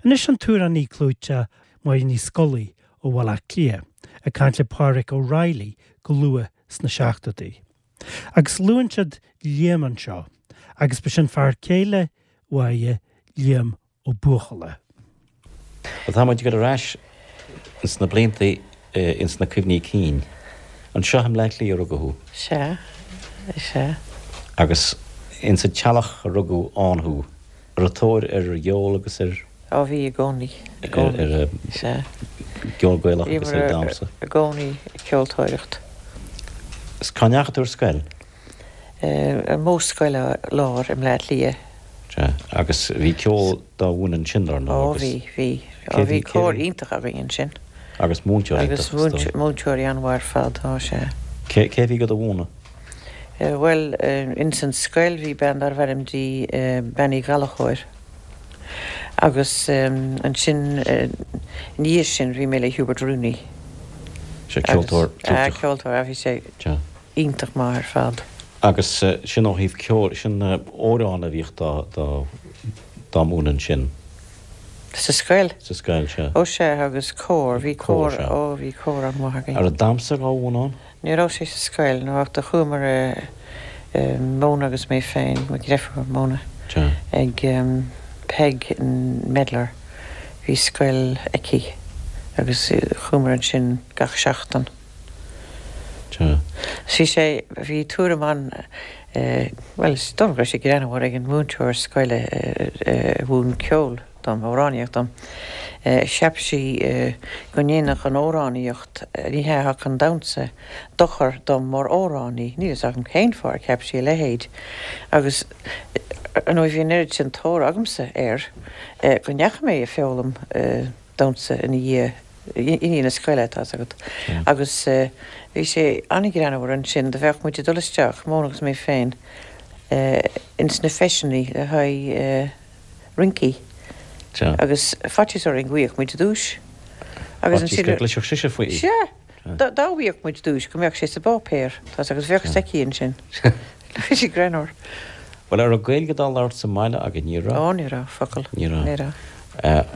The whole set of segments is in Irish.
Anois an t-amhránaí clúiteach Máire Ní Scolaí ó Bhaile Átha Cliath ag caint le Pádraic O'Reilly go luath sna seachtóidí. Agus luann siad Liam anseo, agus ba sin fear céile Mháire, Liam Ó Buachalla. Bhuel, tá muid ag dul ar ais ins na blianta, ins na cuimhní cinn. Anseo i mBleá Cliath a rugadh thú. Sea, sea. Agus ins an teallach a rugadh ann thú. An raibh tóir ar cheol agus ar. Á bhí i gcónaí, i gcónaí. Ar Sea. gceol Gaelach agus ar dhamhsa. Bhíomar i gcónaí ag ceoltóireacht. Is cá ndeachaigh tú ar scoil? Ar Mhodhscoil Láir i mBleá Cliath. Sea, agus bhí ceol dá mhúineadh ansin, dar ndóigh, Ó agus. bhí, bhí. Ó bhí cór iontach againn ansin. Agus múinteoirí iontach, is dóigh. Agus múinteoirí an-mhaith ar fad, ó sea. Cé, cé a bhí do mhúineadh? Bhuel, ins an scoil bhí bean darbh ainm di Bean Uí Ghallchóir agus ansin ina dhiaidh sin bhí mé le Hubert Rooney. Sea, ceoltóir clúiteach. Ceoltóir, bhí sé iontach maith ar fad. Agus sin ó thaobh ceoil, sin amhráin a bhíodh dá, dá, dá múineadh ansin. Sa scoil? Sa scoil, sea. Ó sea, agus cór, bhí cór, ó bhí cór an-mhaith againn. An raibh damhsa dhá mhúineadh ann? Ní raibh sé sa scoil, no ach do chuamar Mona agus mé féin, mo dhreifir Mona, ag Peig Medlar, bhí scoil aici agus chuamar ansin gach seachtain. Bhí sé, bhí tuairim an, bhuel is dóigh liom go raibh sé greannmhar ag an múinteoir scoile a mhúin ceol. dom, amhránaíocht dom. Cheap sí go ndéanfadh an amhránaíocht, ní hea, ach an damhsa, dochar dom mar amhránaí. Níl fhios agam cén fáth ar cheap sí a leithéid. Agus, ar ndóigh, bhí an oiread sin tóir agamsa air go ndeachaigh mé ag foghlaim damhsa ina dhiaidh, i ndiaidh na scoile, tá 'fhios agat. Agus bhí sé an-ghreannmhar ansin, do bheadh muid ag dul isteach, Mona agus mé féin, ins na feiseanna le haghaidh. rincí. Agus faitíos orainn go bhfaigheadh muid duais. Agus ansin. Faitíos go gcloisfeadh sise faoi. Sea! Dá bhfaigheadh muid duais go mbeadh sé sa bpáipéar, tá 'fhios agat, agus bheadh 'fhios aici ansin. Bhí sé greannmhar. Bhuel, an raibh Gaeilge dá labhairt sa mbaile agaibh? Ní raibh. Ó, ní raibh, focal. Ní raibh. Ní raibh.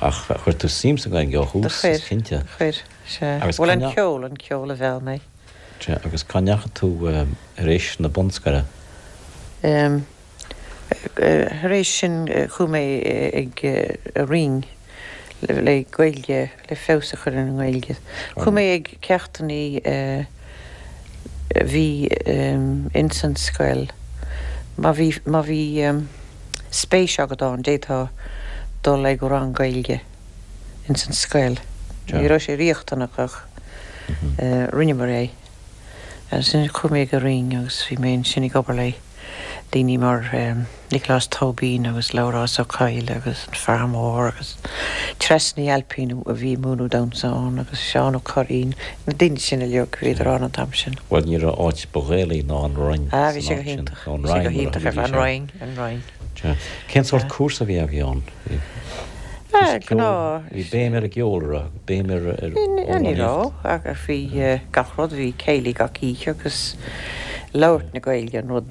Ach chuir tú suim sa Ghaeilge ó thús, is cinnte. Do chuir, sea. Bhuel, an ceol, an ceol a mheall mé. Sea, agus cá ndeachaigh tú tar éis na bunscoile? Thar éis sin chuaigh mé ag an Rinn le Gaeilge, le feabhas a chur ar an nGaeilge. Chuaigh mé ag ceachtannaí a bhí ins an scoil. Má bhí, má bhí spéis agat ann, d'fhéadfá dul ag rang Gaeilge ins an scoil. Ní raibh sé riachtanach ach rinneamar é. Ansin chuaigh mé ag an Rinn agus bhí mé ansin ag obair le daoine mar Nioclás Tóibín agus Labhrás Ó Cadhla agus an Fear Mór agus Treasa Ní Ailpín a bhí ag múineadh damhsa ann agus Seán Ó Curraoin, na daoine sin uilig, bhíodar ann an t-am sin. Bhuel, ní raibh áit ba Ghaelaí ná an Roinn Ah, bhí sé go hiontach, bhí sé go hiontach ar fad, an Roinn, an Roinn. Cén sórt cúrsa a bhí agaibh ann? Ah, gnáth. Bhí béim ar an gceol, an raibh? Béim ar amhránaíocht? Ní raibh, ach bhí gach rud, bhí céilí gach oíche agus labhairt na Gaeilge an rud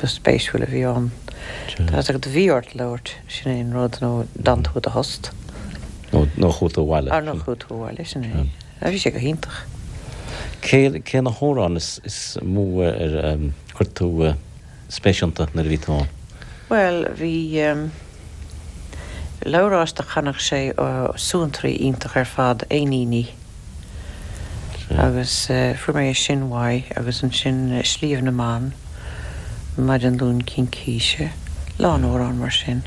ba spéisiúil a bhí ann. Tá 'fhios agat, bhí ort labhairt, sin é an rud, nó d'fhan tú i do thost. Nó chuaigh tú abhaile. Nó chuaigh tú abhaile, sin é. Bhí sé go hiontach. Cé, cé na hamhráin is mó ar chuir tú spéis iontu nuair a bhí tú ann? Bhuel, bhí Labhrás do chanadh sé suantraí iontach ar fad, Éiníní. Agus fuair mé é sin uaidh agus ansin Sliabh na mBan, Maidin Luain Cincíse, lán amhrán mar sin.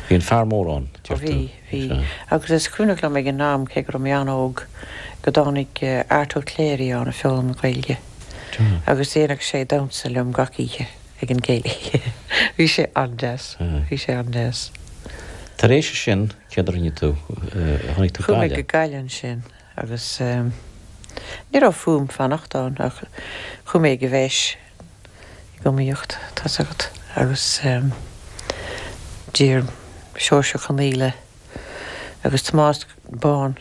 Bhí an fear mór ann, deir tú. Bhí, bhí. Agus is cuimhneach liom ag an am, cé go raibh mé an-óg, go dtáinig Art Ó Cléirigh ann ag foghlaim na Gaeilge. Agus dhéanadh sé damhsa liom gach oíche ag an gcéilí. Bhí sé an-deas. Bhí sé an-deas. Tar éis sin, céard a rinne tú? Tháinig tú Chuaigh mé go Gaillimh ansin agus ní raibh fúm fanacht ann ach chuaigh mé ag an bhFeis ag iomaíocht, tá's agat, agus d'iarr Seoirse Ó Conaola agus Tomás Bán,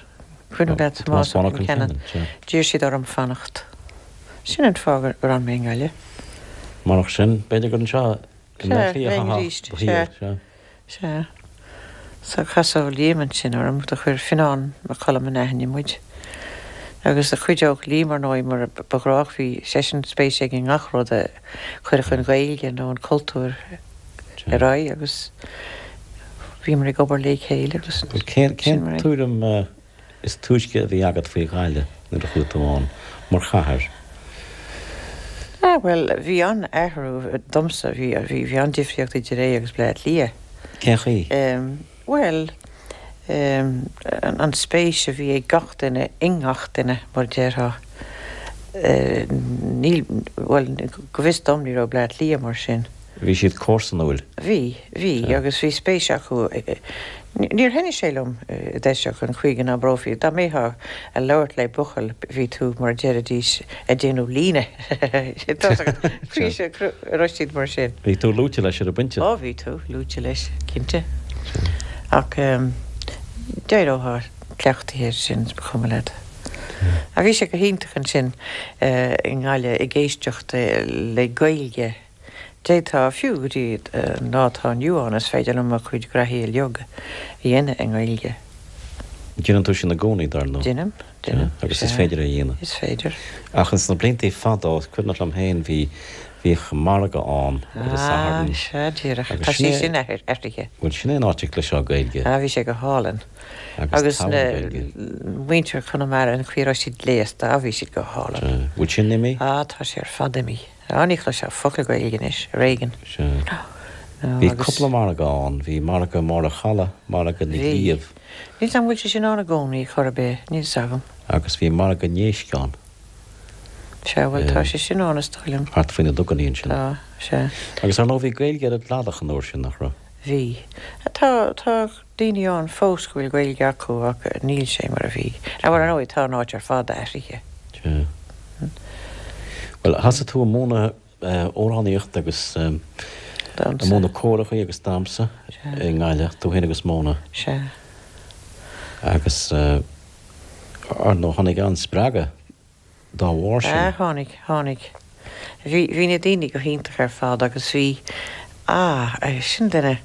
cuimhin leat Tomás Bán Ó Concheanainn, d'iarr siad orm fanacht. Sin an fáth gur fhan mé i nGaillimh. Murach sin, b'fhéidir gur anseo i mBleá Cliath a chaithfeá do shaol, sea. Sea. So casadh Liam ansin orm, do chuir Fionnán Mac Coluim in aithne muid. Agus do chuideodh Liam ar ndóigh mar ba ghnách, bhí seisean spéis aige i ngach rud a chuirfeadh an Ghaeilge nó an cultúr ar aghaidh agus bhíomar ag obair le chéile agus sin Cén mar é. tuairim is túisce a bhí agat faoi Ghaillimh nuair a chuaigh tú ann, mar chathair? Ah, bhuel, bhí an-athrú domsa, bhí, bhí, bhí an-difríocht idir é agus Bleá Cliath. Cén chaoi? Em, bhuel, em, an spéis a bhí ag gach duine i ngach duine, mar a déarfá. Eh, níl, bhuel, go bhfios dom ní raibh Bleá Cliath mar sin. Bhí siad comharsanúil. Bhí, bhí, agus bhí spéis acu. Níor thaitnigh sé liom i dtosach an chaoi go n-abrófaí, dá mbeifeá a labhairt le buachaill bhí tú, mar a deiridís, a déanamh líne. Tá a raibh siad mar sin. Bhí tú luaite leis ar an bpointe. Ó bhí tú luaite leis, cinnte. Ach d'éireofá cleachtaithe air sin, is ba chuma leat. Ach bhí sé go hiontach ansin i nGaillimh ag éisteacht le Gaeilge. D'fhéadfá, fiú go dtí an lá atá inniu ann, is féidir liom mo chuid graithí uilig a dhéanamh i nGaeilge. Déanann tú sin i gcónaí, dar ndóigh. Déanaim, déanaim. Agus is féidir é a dhéanamh. Is féidir. Ach ins na bliantaí fadó, is cuimhneach liom féin, bhí, bhíodh margadh ann ar an Satharn. Ah, sea, díreach. Tá sé sin athraithe. Bhuel, sin é an áit a gcloisfeá Gaeilge. Ah, bhí sé go hálainn. Agus na muintir Chonamara, an chaoi a raibh siad gléasta, ah, bhí siad go hálainn. Bhfuil sin imithe? Ah, tá sé ar fad imithe. Ah, ní chloisfeá focal Gaeilge anois, ar éigean. Sea. Bhí cúpla margadh ann. Bhí margadh i mBarr a' Chalaidh, margadh na gCliabh. Níl 's agam bhfuil sé sin ann i gcónaí, chor ar bith, níl 's agam. Agus bhí margadh na n-éisc ann. Sea, bhuel tá sé sin ann is dóigh liom. Thart faoi na dugannaí ansin. Tá, sea. Agus ar ndóigh bhí Gaeilge ar an gcladach an uair sin, nach raibh? Bhí. Tá, tá daoine ann fós go bhfuil Gaeilge acu ach níl sé mar a bhí. Bhuel, ar ndóigh, tá an áit ar fad athraithe. Sea. Bhuel, thosaigh tú ag múineadh amhránaíocht agus ag múineadh córachaí agus damhsa i nGaillimh, tú féin agus Mona. Sea. Agus, ar ndóigh, tháinig an-spreagadh dá bharr sin. Ah, tháinig, tháinig. Bhí, bhí na daoine go hiontach ar fad agus bhí, ah, sin duine,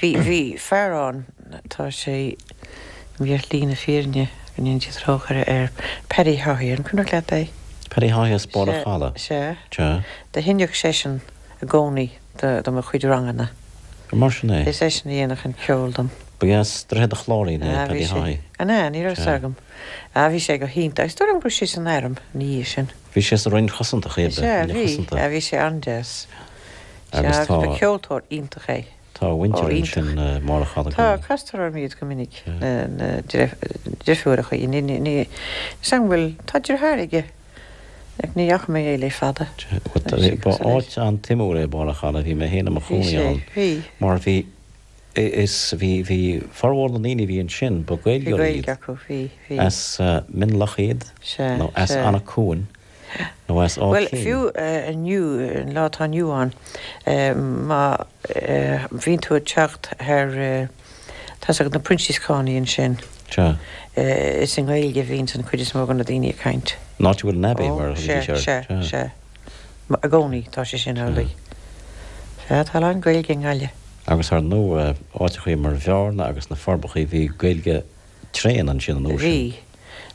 bhí, bhí fear ann, tá sé imithe ar shlí na fírinne, go ndéana Dia trócaire air, Paddy Haughey, an cuimhneach leat é? Paddy Haughey as Barr a' Chalaidh. Sea, sea. Do sheinneadh seisean i gcónaí do, do mo chuid ranganna. Ar mar sin é? Is eisean a dhéanadh an ceol dom. Ba as Droichead a' Chláirín é, Paddy Haughey. An ea? Ní raibh 's agam. Ah, bhí sé go hiontach. Is dóigh liom go raibh sé san airm ina dhiaidh sin. Bhí sé sa Roinn Chosanta, cibé. Sea, bhí. Ah, bhí sé an-deas. Sea, agus ba cheoltóir iontach é. Tá a mhuintir ansin i mBarr a' Chalaidh. Tá, castar orm iad go minic, na deirfiúracha. Ní, ní, ní, is an bhfuil, tá deartháir aige, ach ní fhaca mé é le fada. Ba áit an-tsuimiúil é Barr a' Chalaidh, bhí mé féin i mo chónaí ann. Bhí sé, bhí. Mar bhí, Is bhí, bhí formhór na ndaoine a bhí ansin, ba Bhí Gaeilgeoirí Gaeilge iad. acu, bhí, bhí. As Mionlach iad, Sea, nó as sea. Anach Cuain, nó as Áth Bhuel, Cinn. fiú inniu, an lá atá inniu ann, má bhíonn tú ag teacht thar, tá's agat na Proinsiascánaigh ansin, Sea. is i nGaeilge a bhíonns an chuid is mó de na daoine ag caint. An áit a bhfuil an Abbey, Ó, mar a sea, thugaidís air. sea, Sea. sea. I gcónaí, tá sé sin amhlaidh. Sea, tá a lán Gaeilge i nGaillimh. Agus ar ndóigh, áiteachaí mar Bhearna agus na Forbachaí, bhí Gaeilge tréan ansin an uair sin. Bhí.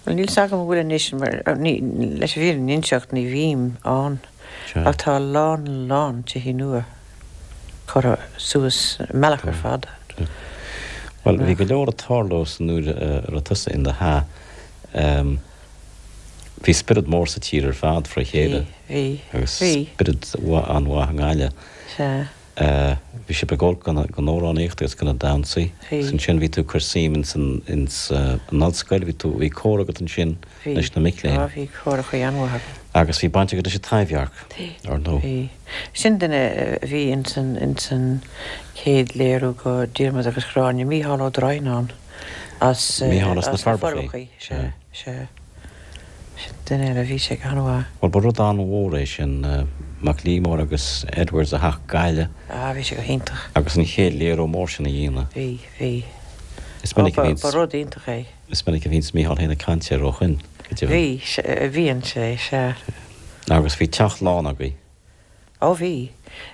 Bhuel, níl 's agam an bhfuil anois, mar, ní, leis an bhfírinne a inseacht, ní bhím ann. Sea. Ach tá a lán, lán tithe nua curtha suas, an mbealach ar fad. Sea. Bhuel, bhí go leor ag tarlú san uair a raibh tusa in do hea. Bhí spiorad mór sa tír ar fad fré chéile. Bhí, bhí, Agus bhí. spiorad an-mhaith i nGaillimh. Sea. Bhí sibh ag gabháil don amhránaíocht agus do na damhsaí. Bhí. Agus ansin bhí tú ag cur suim ins an, ins an ollscoil, bhí tú, bhí cór agat ansin Bhí. leis na mic léinn. Á, bhí córachaí an-mhaith agam. Agus bhí baint agat leis an Taibhdhearc, Bhí. ar ndóigh. Bhí. Sin duine a bhí ins an, ins an chéad léiriú go Diarmuid agus Gráinne, Mícheál Ó Droighneáin as, Mícheál as na as na Forbachaí. Forbachaí, sea, sea. Sin duine eile, bhí sé go han-mhaith. Bhuel, ba rud an-mhór é sin, Mac Liammóir agus Edwards a theacht go Gaillimh. Ah, bhí sé go hiontach. Agus an chéad léiriú mór sin a dhéanamh. Bhí, bhí. Is minic a bhíonns. Ba rud iontach é. Is minic a bhíonns Mícheál féin ag caint air ó shoin, go deimhin. Bhí, bhíonn sé, sea. Agus bhí teach lán agaibh. Ó bhí.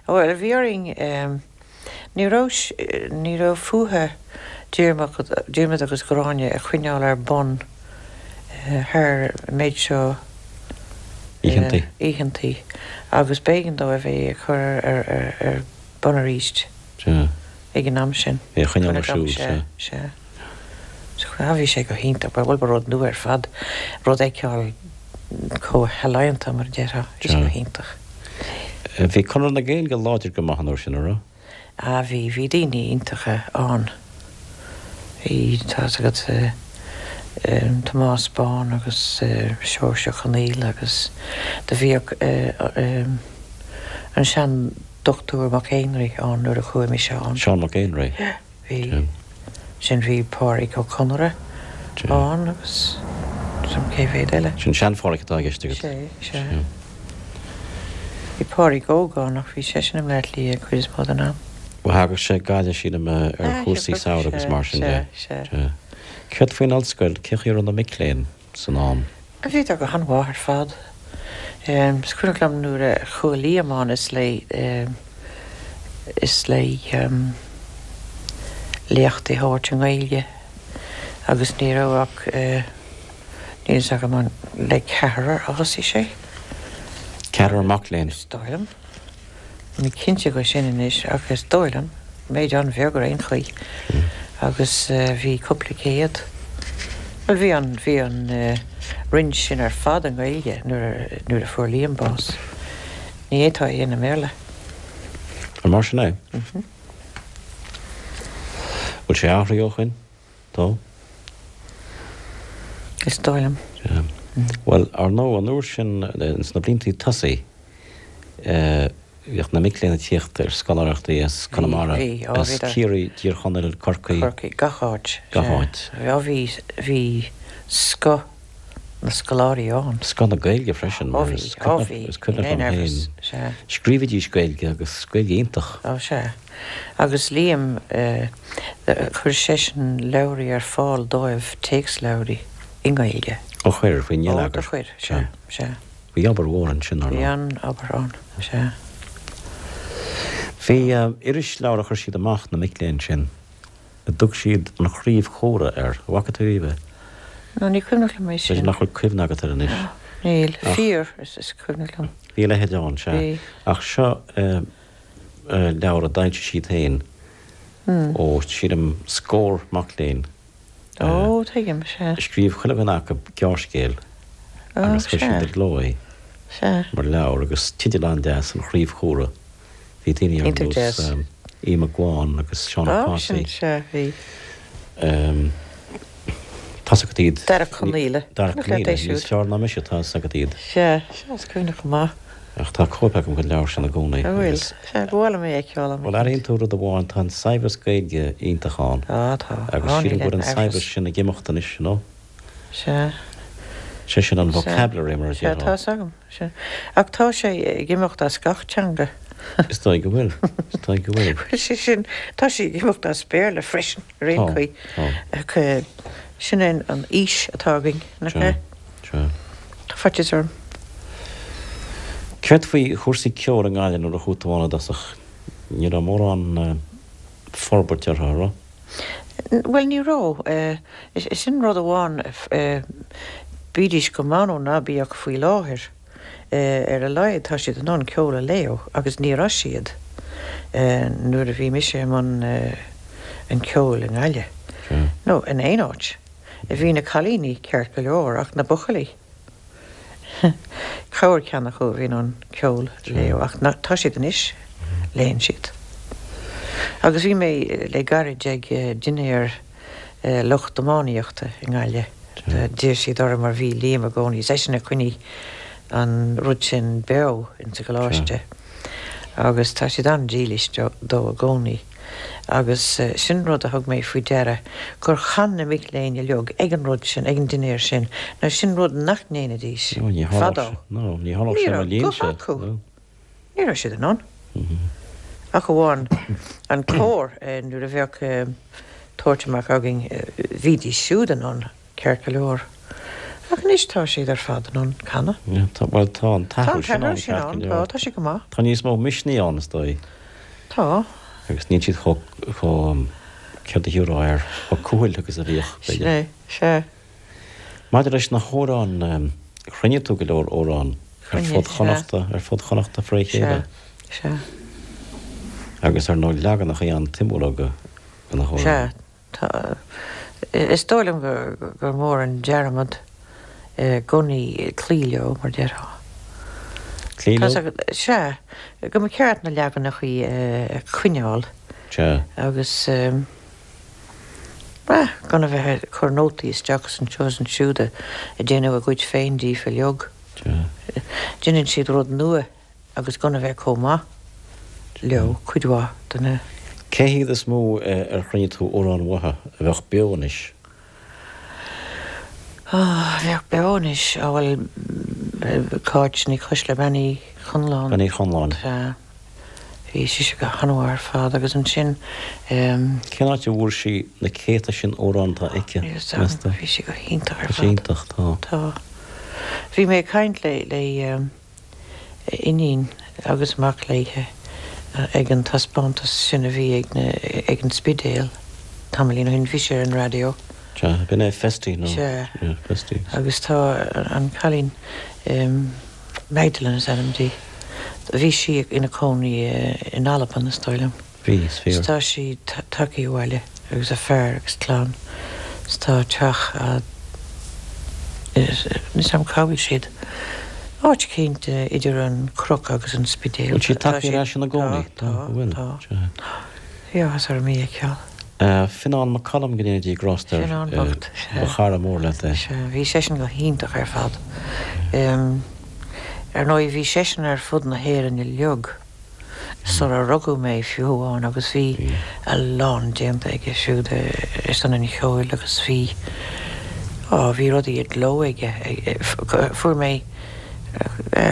Bhuel, bhí orainn, ní raibh, ní raibh fúthu. Diarmuid agus Gráinne a choinneáil ar bun thar an méid seo Oícheantaí. oícheantaí agus b'éigean dóibh é a chur ar bun arís Sea. ag an am sin. É a choinneáil ar siúl, sea. Sea. Sea, bhí sé go hiontach, bhuel ba rud nua ar fad, rud a fheiceáil chomh healaíonta mar a déarfá, bhí sé go hiontach. Bhí Conradh na Gaeilge láidir go maith an uair sin, an raibh? Ah bhí, bhí daoine iontacha ann. Bhí, tá's agat, Tomás Bán agus Seoirse Ó Conaola agus do bhíodh an seandochtúir Mac Éinrí ann nuair a chuaigh mise ann. Seán Mac Éinrí. Bhí. Sin bhí Pádraig Ó Conaire ann agus san cé mhéad eile. Sin sean-Phádraig atá i gceist agat. Sea, sea. Bhí Pádraig óg ann ach bhí seisean i mBleá Cliath an chuid is mó den am. Bhuel thagadh sé go Gaillimh sílim ar chúrsaí samhraidh agus mar sin de. Sea, sea. Céard faoin ollscoil, cén chaoi a raibh na mic léinn san am? Bhíodar go han-mhaith ar fad. Is cuimhneach liom nuair a chuaigh Liam ann is le is le léachtaí a thabhairt i nGaeilge agus ní raibh ach níl fhios agam an le ceathrar a thosaigh sé. Ceathrar mac léinn? Is dóigh liom. Níl mé cinnte dhe sin anois ach is dóigh liom, méid an-bheag ar aon chaoi agus bhí cúpla céad, bhuel bhí an, bhí an roinn sin ar fad i nGaeilge nuair a, nuair a fuair Liam bás. Ní fhéadfá é a dhéanamh i mBéarla. An mar sin é? Bhfuil sé athraithe ó shoin? Tá. Is dóigh liom. Sea. Bhuel, ar ndóigh, an uair sin, ins na bliantaí tosaigh, bhíodh na mic léinn ag tíocht ar scoláireachtaí as Conamara, as Ciarraí, Tír Chonaill, Corcaigh. Corcaigh, gach áit. Gach áit. Sea, bhí, bhí scoth na scoláirí ann. Scoth na Gaeilge freisin, mar is cuimhneach liom féin, scríobhaidís Gaeilge agus Gaeilge iontach. Ó, sea. Agus Liam, chuir seisean leabhraí ar fáil dóibh, téacsleabhraí i nGaeilge. Ó chuir, faoin ngeilleagar. Ó, do chuir, sea, sea. Bhí obair mhór ansin, ar ndóigh. Bhí an-obair ann, sea. Bhí irisleabhar a chuir siad amach, na mic léinn sin, a dtug siad An Chraobh Chomhrá air. An bhfaca tú riamh é? No, ní cuimhneach liom é sin. B'fhéidir nach bhfuil cuimhne agat air anois. Níl. Fíor, is cuimhneach liom. Bhí a leithéid ann, sea. Bhí. Ach seo leabhar a d'fhoilsigh siad féin ó, sílim, scór mac léinn. Ó, tuigim, sea. Scríobh chuile dhuine acu gearrscéal agus chuir siad i gcló é mar leabhar agus teideal an-deas, An Chraobh Chumhra. Bhí daoine ar nós Aodh Mac Gabhann agus Seán Ó Cathasaigh. Sea, bhí. Tá's agat iad. Darach Conaola. Darach Conaola, níos fearr ná mise, tá's agat iad. Sea, sea, is cuimhneach go maith. Ach tá cóip agam den leabhar sin i gcónaí. An bhfuil? Sea, ba mhaith liom é a fheiceáil am Bhuel, airíonn tú rud amháin, tá an saibhreas Gaeilge iontach ann. Á, tá. Agus Á, sílim níl go bhfuil aon an saibhreas amhras. sin ag imeacht anois, you know. Sea. Sé sin an Sea. vocabulary mar a Sea, déarfá. tá's agam. Sea. Ach tá sé ag imeacht as gach teanga. Is dóigh go bhfuil. Is dóigh go bhfuil. Bhuel, sé sin, tá sé ag imeacht as Béarla freisin, ar aon Tá, chaoi. tá. Ach sin é an aois atá againn, nach Sea, ea? sea. Tá faitíos orm. Céard faoi chúrsaí ceoil i nGaillimh nuair a chuaigh tú ann i dtosach? Ní raibh mórán forbairt orthu, an raibh? Bhuel, ní raibh. Sin rud amháin, bídís go maith nó ná bíodh faoi láthair, ar a laghad tá siad in ann ceol a léamh agus ní raibh siad nuair a bhí mise i mbun an cheoil i nGaillimh, nó in aon áit. Bhí na cailíní ceart go leor ach na buachaillí, corr ceann acu a bhí in ann ceol a léamh ach tá siad anois, léann siad. Agus bhí mé le gairid ag dinnéar lucht iománaíochta i nGaillimh, d'iarr siad orm mar bhí Liam i gcónaí, is eisean a choinnigh an rud sin beo insa gcoláiste agus tá siad an-dílis dó i gcónaí. Agus sin rud a thug mé faoi deara, gur chan na mic léinn uilig ag an rud sin, ag an dinnéar sin. Now sin rud nach ndéanfaidís fadó. Ní Ní raibh guth acu. Ní raibh siad in ann. Ach amháin an cór, nuair a bheadh tabhairt amach againn, bhídís siúd in ann. Ceart go leor. Ach anois tá siad ar fad in ann canadh. Tá, bhuel tá an Tá t-athrú an sin t-athrú ann, sin ceart go ann, leor. tá, tá sé go maith. Tá níos mó misnigh ann, is dóigh. Tá. Agus níl siad chomh, chomh. Céard a thiúrfá air? Chomh cúthail agus a bhíodh, Sin é, sea. Maidir leis na hamhráin, chruinnigh tú go leor amhrán ar fud Chonnachta, ar fud Chonnachta fré chéile. Sea, sea. Agus ar ndóigh leaganachaí an-tsuimiúla de na hamhráin. Sea, tá. Is dóigh liom gur mór an dearmad i gcónaí cloí leo, mar déarfá. Cloí leo? Sea, go mba cheart na leaganachaí a choinneáil. Sea. Agus. Bhuel, gan a bheith ag cur nótaí isteach is anseo is ansiúd ag déanamh a gcuid féin díofa uilig. Déanann siad rud nua agus gan a bheith chomh maith leo, cuid mhaith de na. Cé hiad is mó ar chruinnigh tú amhráin uathu a bheadh beo anois? A bheadh beo anois? Á bhuel, Cáit Ní Choisdealbha, Bean Uí Chonláin. Bean Uí Chonláin. Sea. Bhí sise go han-mhaith ar fad agus ansin. Cén áit a bhfuair sí na céadta sin amhrán atá aici, meas tú? Bhí sí go hiontach ar fad. Tá sí iontach, tá. Tá. Bhí mé ag caint le le iníon agus mac léithe ag an taispeántas sin a bhí ag na ag an Spidéal tamaillín ó shin. Bhí sé ar an raidió. Sea, b'in é Festy nó? Sea. Festy. Agus tá an cailín. Magdalene is ainm di. Bhí sí ina cónaí in Albain, is dóigh liom. Bhí, is fíor. 'S tá sí tagthaí abhaile agus a fear agus clann. 'S tá teach á, níl 'fhios a'm cá bhfuil siad. Áit eicínt idir an Chnoc agus an Spidéal. Bhfuil sí tagthaí ar ais ina gcónaí? Tá, tá, tá. Bhí áthas orm í a fheiceáil. Fionán Mac Coluim, go ndéana Dia grásta air. Fionán bocht, sea. Ba chara mór leat é. Sea, bhí seisean go hiontach ar fad. Ar ndóigh, bhí seisean ar fud na hÉireann uilig sula rugadh mé fiú amháin agus bhí a lán déanta aige siúd ar son an cheoil agus bhí, á, bhí rudaí i gcló aige. Fuair mé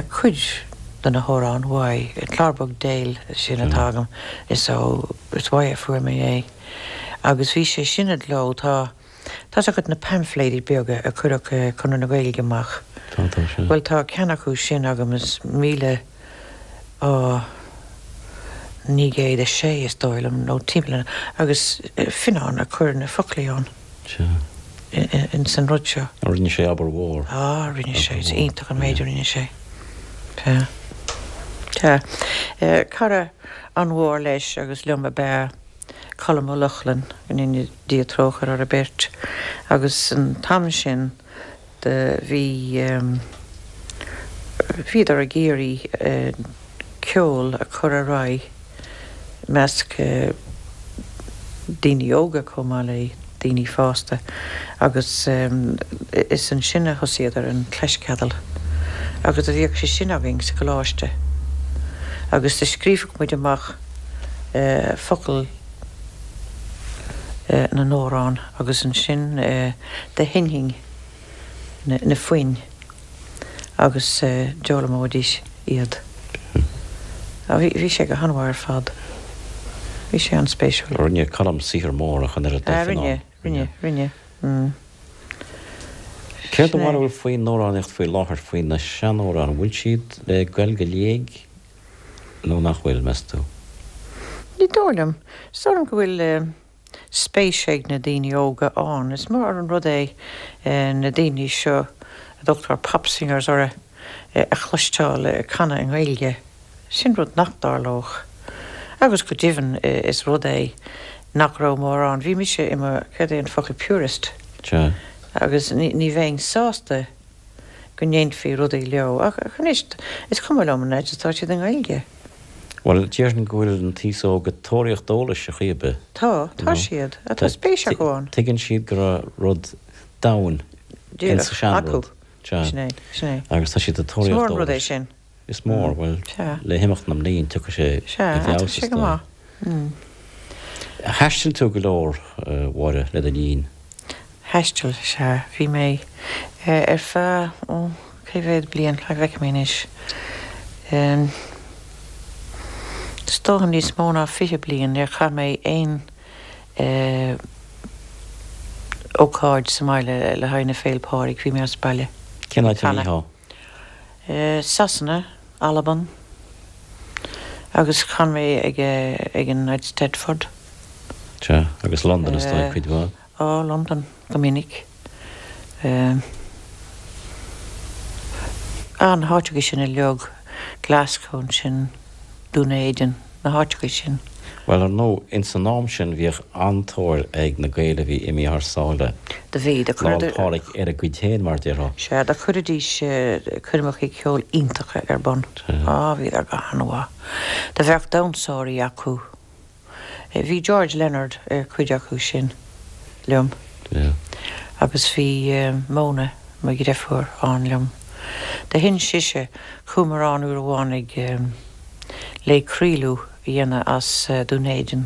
cuid de na hamhráin uaidh, an Clár Beag Déil sin atá agam, is ó, is uaidh a fuair mé é. Agus bhí sé sin i gcló, tá, tá's agat na paimfléidí beaga a chuireadh Conradh na Gaeilge amach. Tá, tá, sea. Bhuel tá ceann acu sin agam is míle, á, 906 is dóigh liom, nó timpeall, agus Fionán a chuir na foclaí ann. Sea. Ins an rud seo. Rinne sé obair mhór. Á, rinne sé. Is iontach an méid a rinne sé. Sea. Sea. Cara an-mhór leis agus liom ab ea Colm Ó Lochlainn, go ndéana Dia trócaire orthu beirt. Agus an t-am sin do bhí, bhíodar ag iarraidh ceol a chur ar aghaidh i measc daoine óga chomh maith le daoine fásta agus is ansin a thosaíodar an Claisceadal agus do bhíodh sé sin againn sa gcoláiste agus do scríobhadh muid amach focail na n-amhrán agus ansin do sheinnfinn na foinn. agus d'fhoghlaimeoidís iad. Bhí sé go han-mhaith ar fad. Bhí sé an-spéisiúil. Rinne Colm saothar mór ach an oiread le Fionán. Rinne, rinne, rinne. Céard do bharúil faoin amhránaíocht faoi láthair, faoi na seanamhráin, an bhfuil siad le goil go léig nó nach bhfuil, meas tú? Ní dóigh liom. Is dóigh liom go bhfuil spéis ag na daoine óga ann. Is mór an rud é na daoine seo a dtugtar pop singers orthu a chloisteáil ag canadh i nGaeilge. Sin rud nach dtarlódh. Agus go deimhin is rud é nach raibh mórán. Bhí mise i mo, céard é an focal, purist. Sea. Agus ní bheinn sásta go ndéanfaí rudaí leo. Ach anois, is cuma liom an fhaid is atá siad i nGaeilge. Bhuel, déarfainn go bhfuil an t-aos óg ag tóraíocht eolais ar chaoi ar bith. Tá, tá siad. Tá spéis acu ann. Tuigeann siad go raibh rud domhain in sa seanrud. Acu. Sin é, sin é. Agus tá siad ag tóraíocht eolais. Is mór an rud é sin. Is mór, bhuel, le himeacht na mblian tiocfaidh sé i bhfeabhas is dóigh. Thaistil tú go leor, a Mháire, le do linn. Thaistil, sea. Bhí mé ar feadh, ó, cé mhéad bliain, cá bhfeicfidh mé anois, is dócha níos mó ná 20 bliain, níor chaith mé aon ócáid sa mbaile le haghaidh na Féil' Pádraig, bhí mé as baile. Cén áit a mbítheá? Sasana, Albain agus chan mé ag ag an Eisteddfod. Sea, Agus Londain is dóigh cuid mhaith? Á, Londain go minic. Á, na háiteacha sin uilig, Glasgow ansin, Dún Éideann, na háiteacha sin. Bhuel, ar ndóigh, ins an am sin bhíodh an-tóir ag na Gaeil a bhí imithe thar sáile, Do bhí, do Lá 'le Pádraig ar a gcuid féin, mar déarfá. Sea, do chuiridís coirmeacha ceoil iontacha ar bun. Á, bhíodar go han-mhaith. Do bheadh damhsóirí acu. Bhí George Leonard ar chuid acu sin liom agus bhí Mona, mo dhreifiúr, ann liom. Do hinis sise, chuamar ann uair amháin ag le craoladh a dhéanamh as Dún Éideann,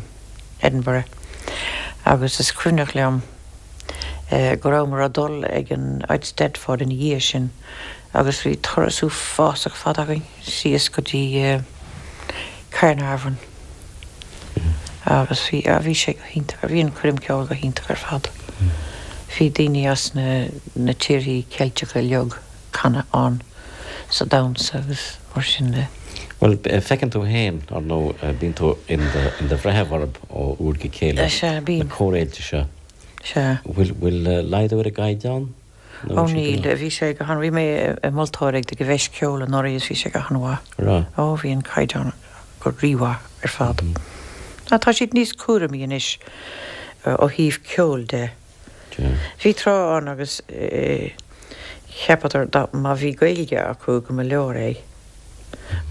Edinburgh, agus is cuimhneach liom go rabhamar ag dul ag an Eisteddfod ina dhiaidh sin agus bhí turas uafásach fada againn síos go dtí Caernarfon. Agus bhí, ah, bhí sé go hiontach, bhí an choirm ceoil go hiontach ar fad. Bhí daoine as na, na tíorthaí Ceilteacha uilig ag canadh ann sa damhsa agus mar sin de. Bhuel, feiceann tú féin, ar ndóigh, bíonn tú in do, in do bhreitheamh orthu ó uair go chéile, Sea, na bím. córfhéilte seo. Sea. Bhfuil, bhfuil laghdú ar an gcaighdeán? Ó níl, bhí sé go han, bhí mé i moltóir ag ag an bhFeis Ceoil anuraidh is bhí sé go han-mhaith. Raibh? Ó bhí an caighdeán go rímhaith ar fad. Ná tá siad níos cúramaí anois ó thaobh ceoil de. Bhí tráth ann agus cheapadar dá má bhí Gaeilge acu go mba leor é.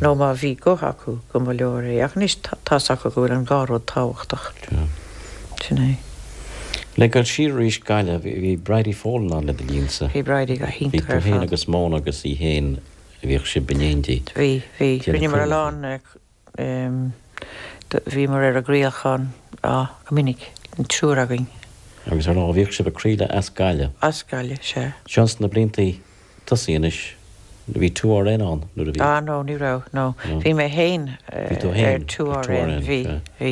Nó má bhí guth acu go mba leor é. Ach anois tá's acu go bhfuil an dhá rud tábhachtach. Sin é. Le dul siar arís Gaillimh, bhí Bridie Folan ann le do linnsa. Bhí Bridie go hiontach ar fad. Bhí tú féin agus Mona agus í féin, bhíodh sibh in éindí. Bhí, bhí. Rinneamar a lán, bhíomar ar an gcraolachán, á, go minic, an triúr againn. Agus ar ndóigh bhíodh sibh ag craoladh as Gaillimh. As Gaillimh, sea. Seo ins na bliantaí tosaigh anois. Bhí 2RN ann nuair a bhí. Ah no, ní raibh, no. Bhí mé fhéin ar 2RN, bhí, bhí.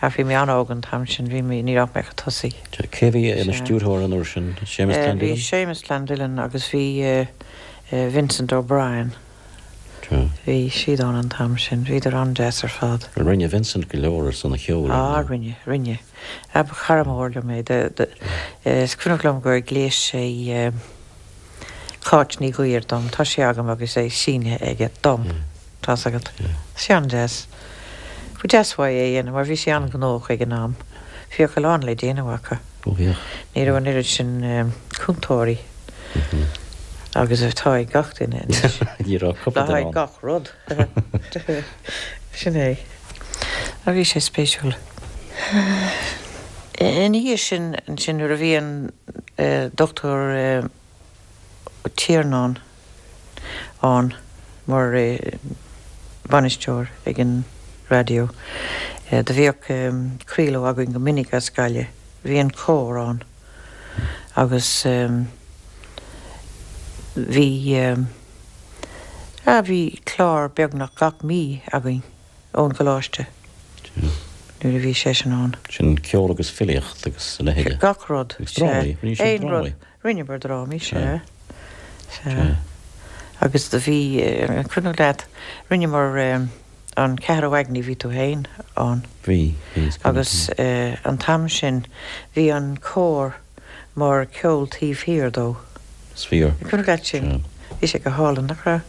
Ach bhí mé an-óg an t-am sin, bhí mé, ní raibh mé chomh tosaí. Cé a bhí ina stiúrthóir an uair sin? Séamus Clandillon? Bhí Séamus Clandillon agus bhí Vincent O'Brien. Bhí siad ann an t-am sin, bhíodar an-deas ar fad. Rinne Vincent go leor ar son an cheoil, ar ndóigh. Ah rinne, rinne. Ba chara mór liom é. Is cuimhneach liom gur ghléas sé Cáit Ní Ghuidhir dom. Tá sé agam agus é sínithe aige dom. Tá's agat. Sé an-deas. Ba deas uaidh é a dhéanamh mar bhí sé an-ghnóthach ag an am. Bhíodh a lán le déanamh acu. Ó bhíodh. Ní raibh an oiread sin cúntóirí agus atá ag gach duine anois. Ní raibh cúpla duine ann. Le haghaidh gach rud. Sin é. Ach bhí sé spéisiúil. Ina dhiaidh sin, ansin, nuair a bhí an Dr. Ó Tiarnáin ann mar bhainisteoir ag an raidió, do bhíodh craoladh againn go minic as Gaillimh. Bhí an cór ann agus bhí, ah, bhí clár beagnach gach mí againn. ón gcoláiste nuair a bhí seisean ann. Sin ceol agus filíocht agus a leithéide. Gach rud. Agus drámaí. Rinne siad drámaí. Rinneamar drámaí, sea. Sea. Agus do bhí, an cuimhneach leat, rinneamar an Ceathrú Aigní, bhí tú féin ann. Bhí, bhí, is cuimhin liom. Agus an t-am sin bhí an cór mar ceol taobh thiar dó. Is fíor. An cuimhneach leat sin? Bhí sé go hálainn, nach raibh?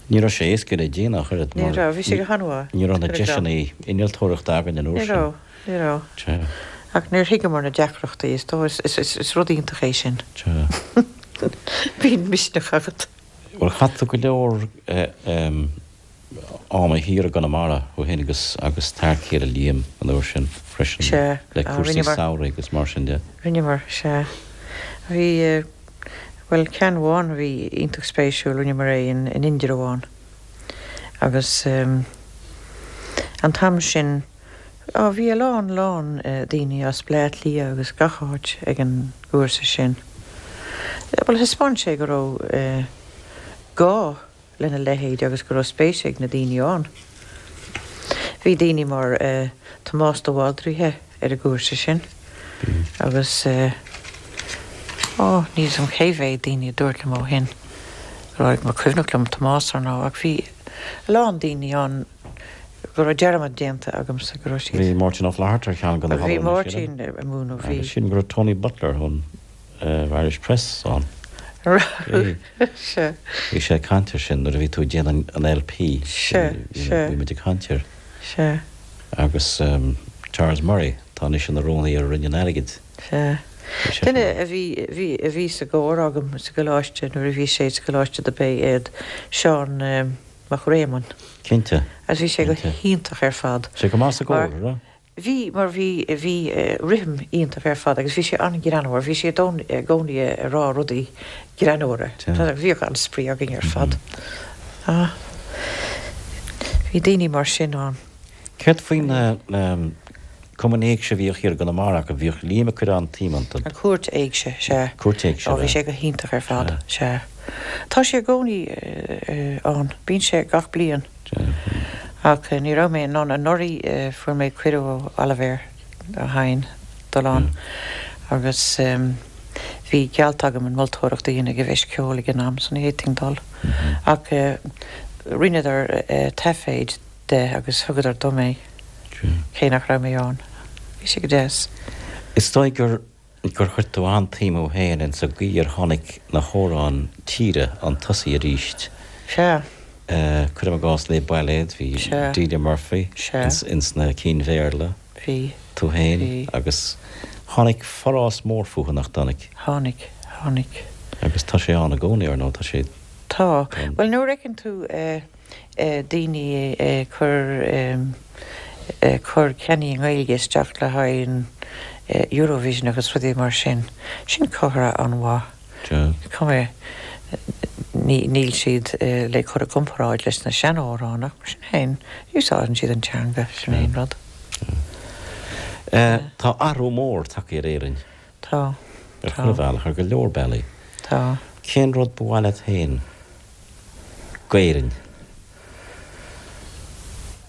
Ní raibh sé éasca le déanamh ach oiread mar. Ní raibh, bhí sé go han-mhaith. Ní raibh na deiseanna innealtóireachta againn an uair sin. Ní raibh, ní raibh. Sea. Ach níor thuigeamar na deacrachtaí, is dóigh, is rud iontach é sin. Sea. Bíonn misneach agat. Bhuel, chaith tú go leor ama thiar i gConamara ó shin agus agus t'fhear céile Liam an uair sin freisin Sea. le cúrsaí samhraidh agus mar sin de. Rinneamar, sea. Bhí, bhuel, ceann amháin a bhí iontach spéisiúil, rinneamar é in Indreabhán agus an t-am sin, á, bhí a lán, lán daoine as Bleá Cliath agus gach áit ag an gcúrsa sin. Bhuel, thaispeáin sé go raibh gá lena leithéid agus go raibh spéis ag na daoine ann. Bhí daoine mar Tomás de Bhaldraithe ar an gcúrsa sin agus, ó, níl 'fhios a'm cé mhéad daoine a dúirt liom ó shin go raibh, mar cuimhneach liom Tomás ar ndóigh ach bhí a lán daoine ann. Go raibh dearmad déanta agamsa go raibh siad. Bhí Máirtín Ó Flatharta ar cheann de na Bhí Máirtín ag múineadh, bhí. Agus sílim go raibh Tony Butler ón Irish Press ann. Raibh, sea. Bhí sé ag caint air sin nuair a bhí tú ag déanamh an LP. Sea, sea. Bhí muid ag caint air. Sea. Agus Charles Murray, atá anois ina rúnaí ar Roinn an Airgid. Sea. Duine a bhí, bhí, a bhí sa gcór agam sa gcoláiste nuair a bhí sé sa gcoláiste do b'é iad Seán Mac Réamoinn. Cinnte. Agus bhí sé go hiontach ar fad. Sé go maith sa gcór, an raibh? Bhí, mar bhí, bhí rithim iontach ar fad agus bhí sé an-ghreannmhar, bhí sé i gcónaí ag rá rudaí greannmhara. Bhíodh an-spraoi againn ar fad. Ah, bhí daoine mar sin ann. Céard faoi na Cumainn Éigse a bhíodh thiar i gConamara acu, bhíodh Liam ag cur an-tsuim iontu. An Chúirt Éigse, sea. Cúirt Éigse, Ó, bhí sé go hiontach ar fad, sea. Tá sé i gcónaí ann, bíonn sé gach bliain. Ach ní raibh mé in ann, anuraidh fuair mé cuireadh ó Oilibhéar Ó hEidhin dul ann agus bhí geallta agam an mholtóireacht a dhéanamh ag an bhFeis Ceoil ag an am so ní fhéadfainn dul. Ach rinneadar taiféad de agus thugadar dom é, cé nach raibh mé ann. Bhí sé go deas. Is dóigh gur gur chuir tú an-tsuim thú féin ins an gcaoi ar tháinig na hamhráin tíre 'un tosaigh arís. Sea. Cuirim i gcás Les Bailéid, bhí Delia Murphy ins na cinn Bhéarla. Bhí. Tú féin. Bhí. Agus tháinig forás mór fúthu, nach dtáinig? Tháinig. Tháinig. Agus tá sé ann i gcónaí, ar ndóigh, tá sé. Tá. Bhuel, nuair a fheiceann tú daoine ag cur ag cur ceannaí i nGaeilge isteach le haghaidh an Eurovision agus rudaí mar sin. Sin comhartha an-mhaith. Cuma níl siad le cur i gcomparáid leis na seanamhráin ach mar sin féin úsáideann siad an teanga, sin é an rud. Tá athrú mór tagtha ar Éirinn. Tá. Ar chuile bhealach, ar go leor bealaí. Tá. Cén rud ba mhaith leat féin d'Éirinn?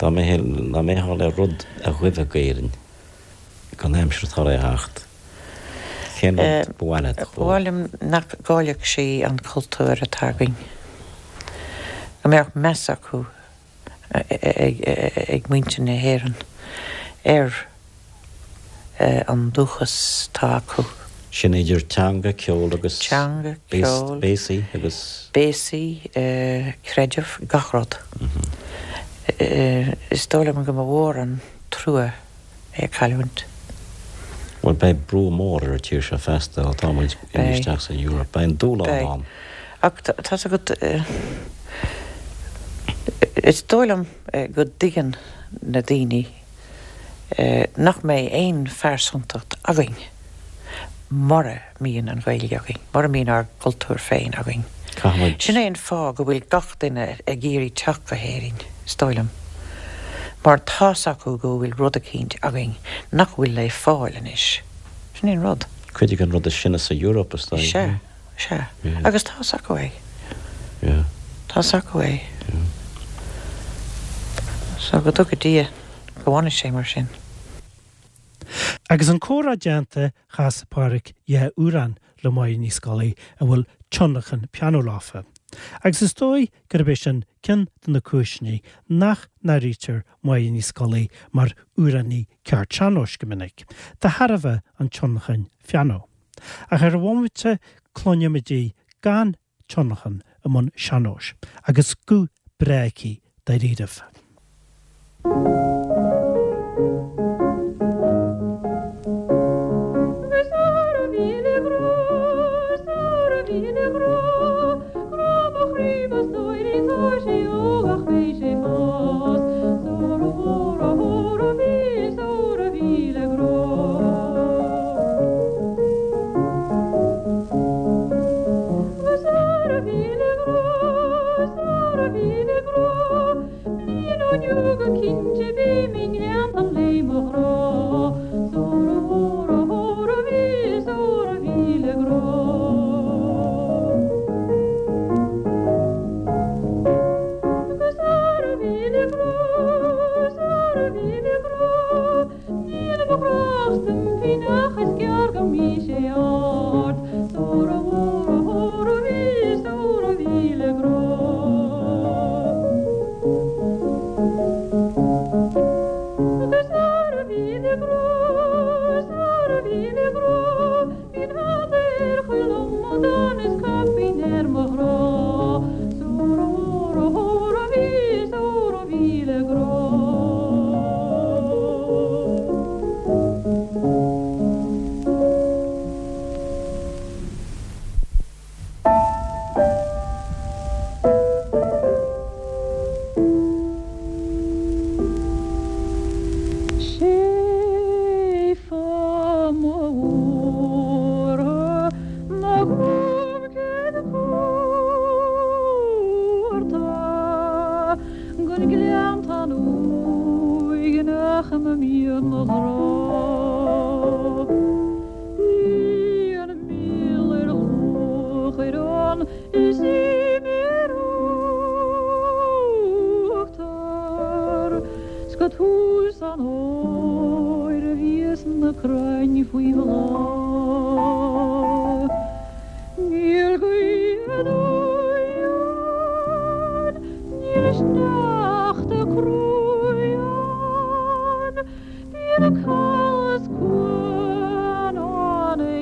Dá mbeifeá le rud a ghuibhe d'Éirinn don aimsir atá le theacht, cén rud ba mhaith leat Ba mhaith liom nach gcaillfeadh sí an cultúr atá againn. Go mbeadh meas acu ag muintir na hÉireann ar an dúchas atá acu. Sin idir teanga, ceol agus Teanga, ceol, béasaí agus. Béasaí, creideamh, gach rud. Is dóigh liom go mba mhór an trua é a chailliúint. Bhuel, beidh brú mór ar an tír seo feasta ó tá muid imithe isteach san Eoraip. Beidh an dúshlán Beidh. ann. Ach tá's agat, is dóigh liom go dtuigeann na daoine nach mbeidh aon phearsantacht againn mura mbíonn an Ghaeilge againn, mura mbíonn ár gcultúr féin againn. Caithfimid. Sin é an fáth go bhfuil gach duine ag iarraidh teacht go hÉirinn, is dóigh liom, mar tá's acu go bhfuil rud eicínt againn nach bhfuil le fáil anois. Sin é an rud. Cuid den rud is sine sa Eoraip, is dóigh. Sea, sea. Agus tá's acu é. Tá's acu é. So go dtuga Dia go bhfanfaidh sé mar sin. Agus an comhrá déanta, chas Pádhraic 2 amhrán le Máire Ní Scolaí a bhfuil tionlacan pianó leofa. Agus is dóigh gurb é sin ceann de na cúiseanna nach n-áirítear Máire Ní Scolaí mar amhránaí ceart sean-nóis go minic, de thairbhe an tionlacain phianó. Ach ar an bhomaite cluinimid í gan tionlacan i mbun sean-nóis agus guth breá aici dáiríribh.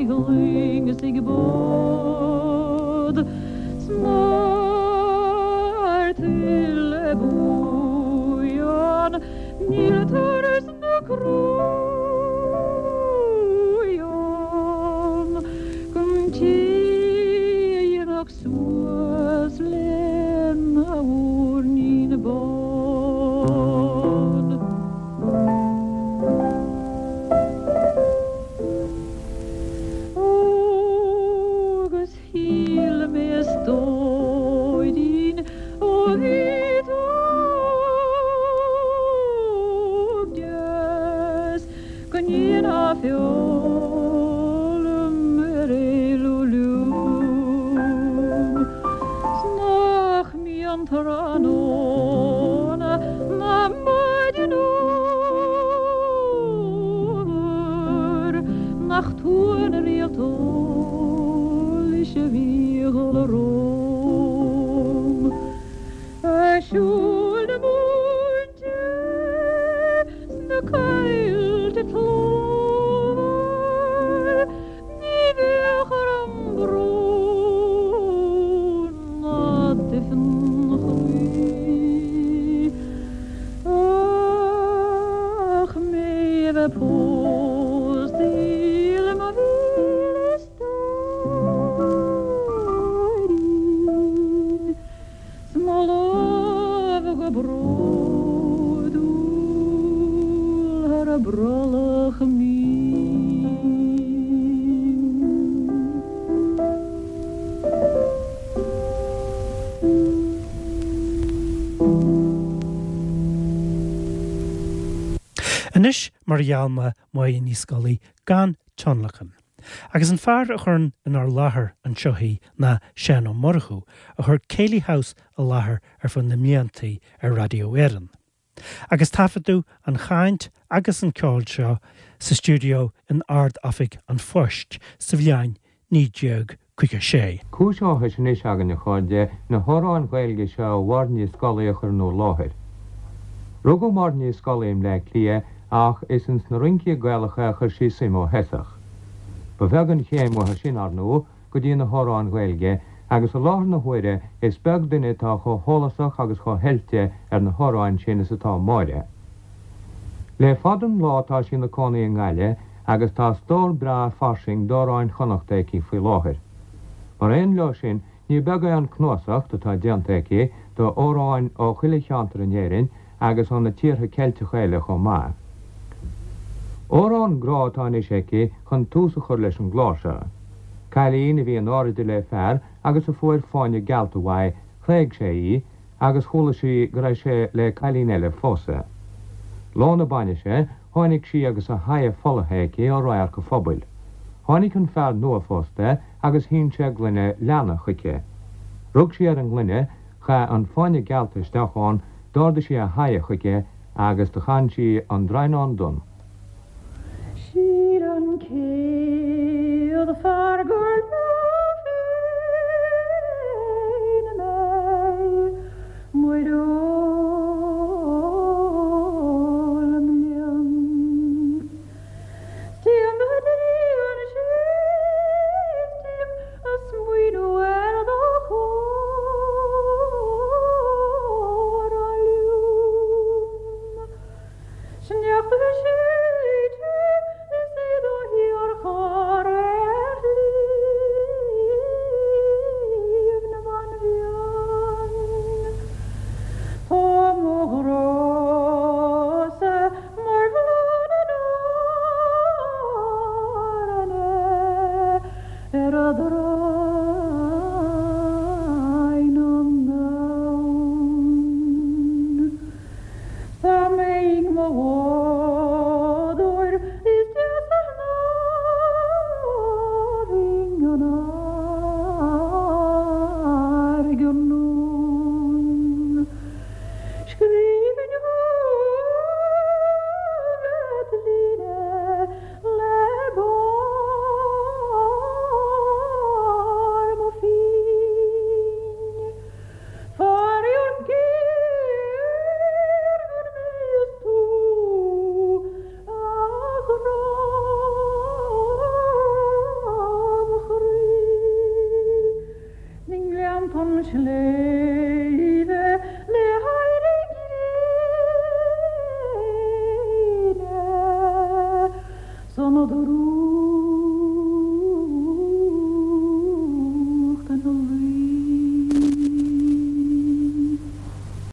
Ag loing is ag bád 's mar tuile buan níl turas na croí ann go dtí a dhéanfadh suas lena mhuirnín bán. Ó agus shíl mé a stóirín ó bhí tú óg deas go ndéanfá feoil ar éalú liom 's nach mbíonn tráthnóna ná maidin fhómhair nach tú an réalt eolais a bhí a dhul romham a' siúl na múinte sna coillte tlómhar. Ní bheadh orm brón ná duifean chroí ach mé a bheith pósta le mo mhíle stóirín 's mo lámh go bródúil thar a brollach mín. Anois, mar a gheall mé, Máire Ní Scolaí gan tionlacan. Agus an fear a chuireann inár láthair anseo í ná Seán Ó Murchú, a chuir Céilí House i láthair ar feadh na mbliantaí ar Raidió Éireann. Agus taifeadadh an chaint agus an ceol seo sa stiúideo in Ard-Oifig an Phoist sa bhliain 1956. Cúis áthais anois againn, a chairde, na hamhráin Ghaeilge seo ó Mháire Ní Scolaí a chur in bhur láthair. Rugadh Máire Ní Scolaí i mBleá Cliath ach is ins na rincí Gaelacha a chuir sí suim ó thosach. Ba bheag an chéim uaithi sin, ar ndóigh, go dtí na hamhráin Ghaeilge agus i láthair na huaire is beag duine atá chomh heolasach agus chomh hoilte ar na hamhráin sin is atá Máire. Le fada an lá tá sí ina cónaí i nGaillimh agus tá stór breá fairsing d'amhráin Chonnachta aici faoi láthair. Mar aon leo sin ní beag é an cnuasacht atá déanta aici d'amhráin ó chuile cheantar in Éirinn agus ó na tíortha Ceilteacha eile chomh maith. Amhrán grá atá anois aici chun tús a chur leis an gclár seo. Cailín a bhí in airde le fear agus a fuair fáinne geallta uaidh, thréig sé í agus chuala sí go raibh sé le cailín eile a phósadh. Lá na bainise, tháinig sí agus a haghaidh folaithe aici ó radharc an phobail. Tháinig an fear nua-phósta agus shín sé gloine leanna chuici. Rug sí ar an ngloine, chaith an fáinne geallta isteach ann, d'ardaigh sí a haghaidh chuige agus do chan sí an Draighneán Donn. Shíl an chéad fear gur leo féin mé, muireoil mblian. 'S téim go dtí an séis tím a smaoineamh ar do chóra liom. Sneachta séidte is é do shíorchur ar Shliabh na mBanríon. Tá mo ghrá-sa mar bhláth na n-airne ar an Draighneán Donn. Dá mbeinn mo bhádóir is deasa ná bhinn an fharraige anonn. Scríbhinn chugat líne le bás. chun sléibhe le héirí gréine 's an drúcht.